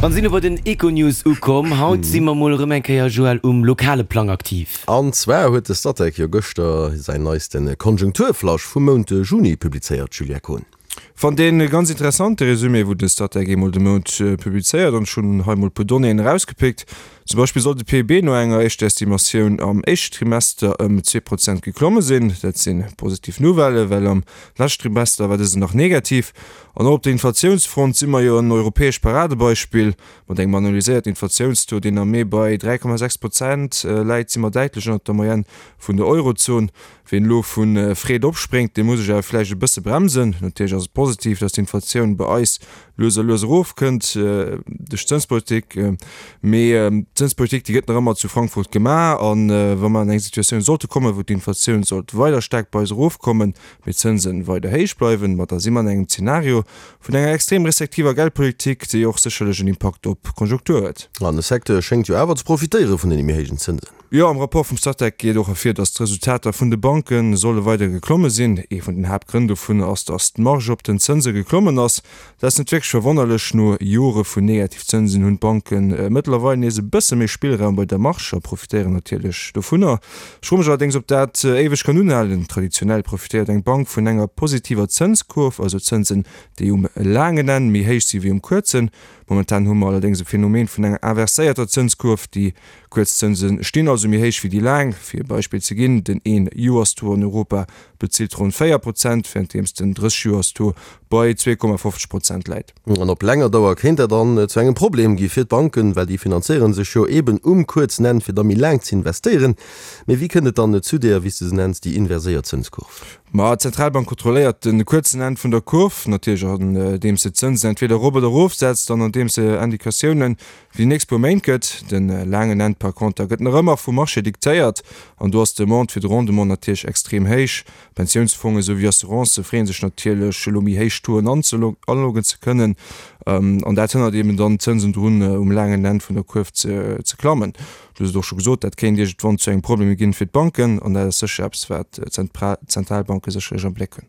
An sinn elo bei den Econews ukomm. Haut si mer mol erëm eng Kéier, Joël, um lokale Plang aktiv. An zwar huet de Statec jo gëschter säin neiste Konjunkturflash vum Mount Juni publizéiert, Julia Kohn. Fannt een ganz interessant de Resumé wou de Statec eemol de Mount publizéiert an ech hunn hei mol puer Donnéeën erausgepickt. Zum Beispill soll de PIB no enger éischter Estimatioun am éischte Trimester ëm 2% geklomme sinn. Dat si positiv Nouvellen, well am leschten Trimester war dësen nach negativ. An och op der Inflatiounsfront si mer jo en europäescht Paradebeispill. Mat engem analyséierten Inflatiounstaux, deen am Mee bei 3,6 Prozent läit, si mer däitlech ënnert der Moyenne vun der Eurozon. Wien elo vu Freed opspréngt, dee muss sech awer vläicht e bësse bremsen. Natierlech ass et positiv, datt d'Inflatioun bei eis lues a lues erofkënnt duerch d'Zënspolitik. Mee d'Zënspolitik, déi gëtt nach ëmmer zu Frankfurt gemaach. A wa mer an eng Situatioun sollte kommen, wou d'Inflatioun sollt weider staark bei eis erofkommen, mee d'Zënsen weider héich bleiwen, ma da si mer an engem Zenario vun enger extrem restriktiver Geldpolitik, déi och sécherlech en Impakt op d'Konjunktur huet. An de Secteur schéngt jo awer ze profitéiere vun deene méi héijen Zënsen. Jo, am Rapport vum Statec geet och ervir, datt d'Resultater vun de Banke solle weider geklomme sinn. Ee vun den Haaptgrënn dovun ass, datt d'Marge op den Zënse geklommen ass. Dat ass net wierklech verwonnerlech, no Jore vun Negativzënsen hunn d'Banke mëttlerweil nees e bësse méi Spillraum bei der Marge a profitéieren natierlech dovunner. Ech froe mech allerdéngs, ob dat éiweg kann unhalen. Traditionell profitéiert eng Bank vun enger positiver Zënskurv, also Zënsen, déi um laangen Enn méi héich si wéi um kuerzen. Momentan hu mer allerdéngs e Phänomen vun enger inverséierter Zënskurv, déi kuerz Zënse stinn also méi héich wéi déi laang. Fir e Beispill ze ginn, Den Een-Joers-Taux an Europa bezilt ronn 4 Prozent, wärenddeems den 30-Joers-Taux bei 2,50 Prozent läit. An op länger Dauer kéint dat dann zu engem Problem gi fir d'Banken, well déi finanzéiere sech jo eben um kuerzen Enn, fir da méi laang ze investéieren. Mee wéi kënnt et dann zu där, wéi s de se nenns, déi inverséiert Zënskurv? Ma d'Zentralbank kontrolléiert de kuerzen Enn vun der Kurv natierlech andeems se d'Zënsen entweder erop oder erofsetzt an andeems se Indikatiounen fir déi nächst puer Méint gëtt. De laangen Enn par conter gëtt nach ëmmer vum Marché diktéiert an do ass d'Demande fir de Rendement natierlech extrem héich. Pensiounsfonge souwéi Assurancë freeën sech natierlech, elo méi héich Tauxen anloggen ze kënnen. An dat hënnert eben dann d'Zënsen drun, um laangen Enn vun der Kuerf ze klammen. Du hues et och scho gesot, dat kéint iergendwann zu engem Problem ginn fir d'Banken. An dat ass sécher eppes, wat d'Zentralbanke sécherlech am Bléck hunn.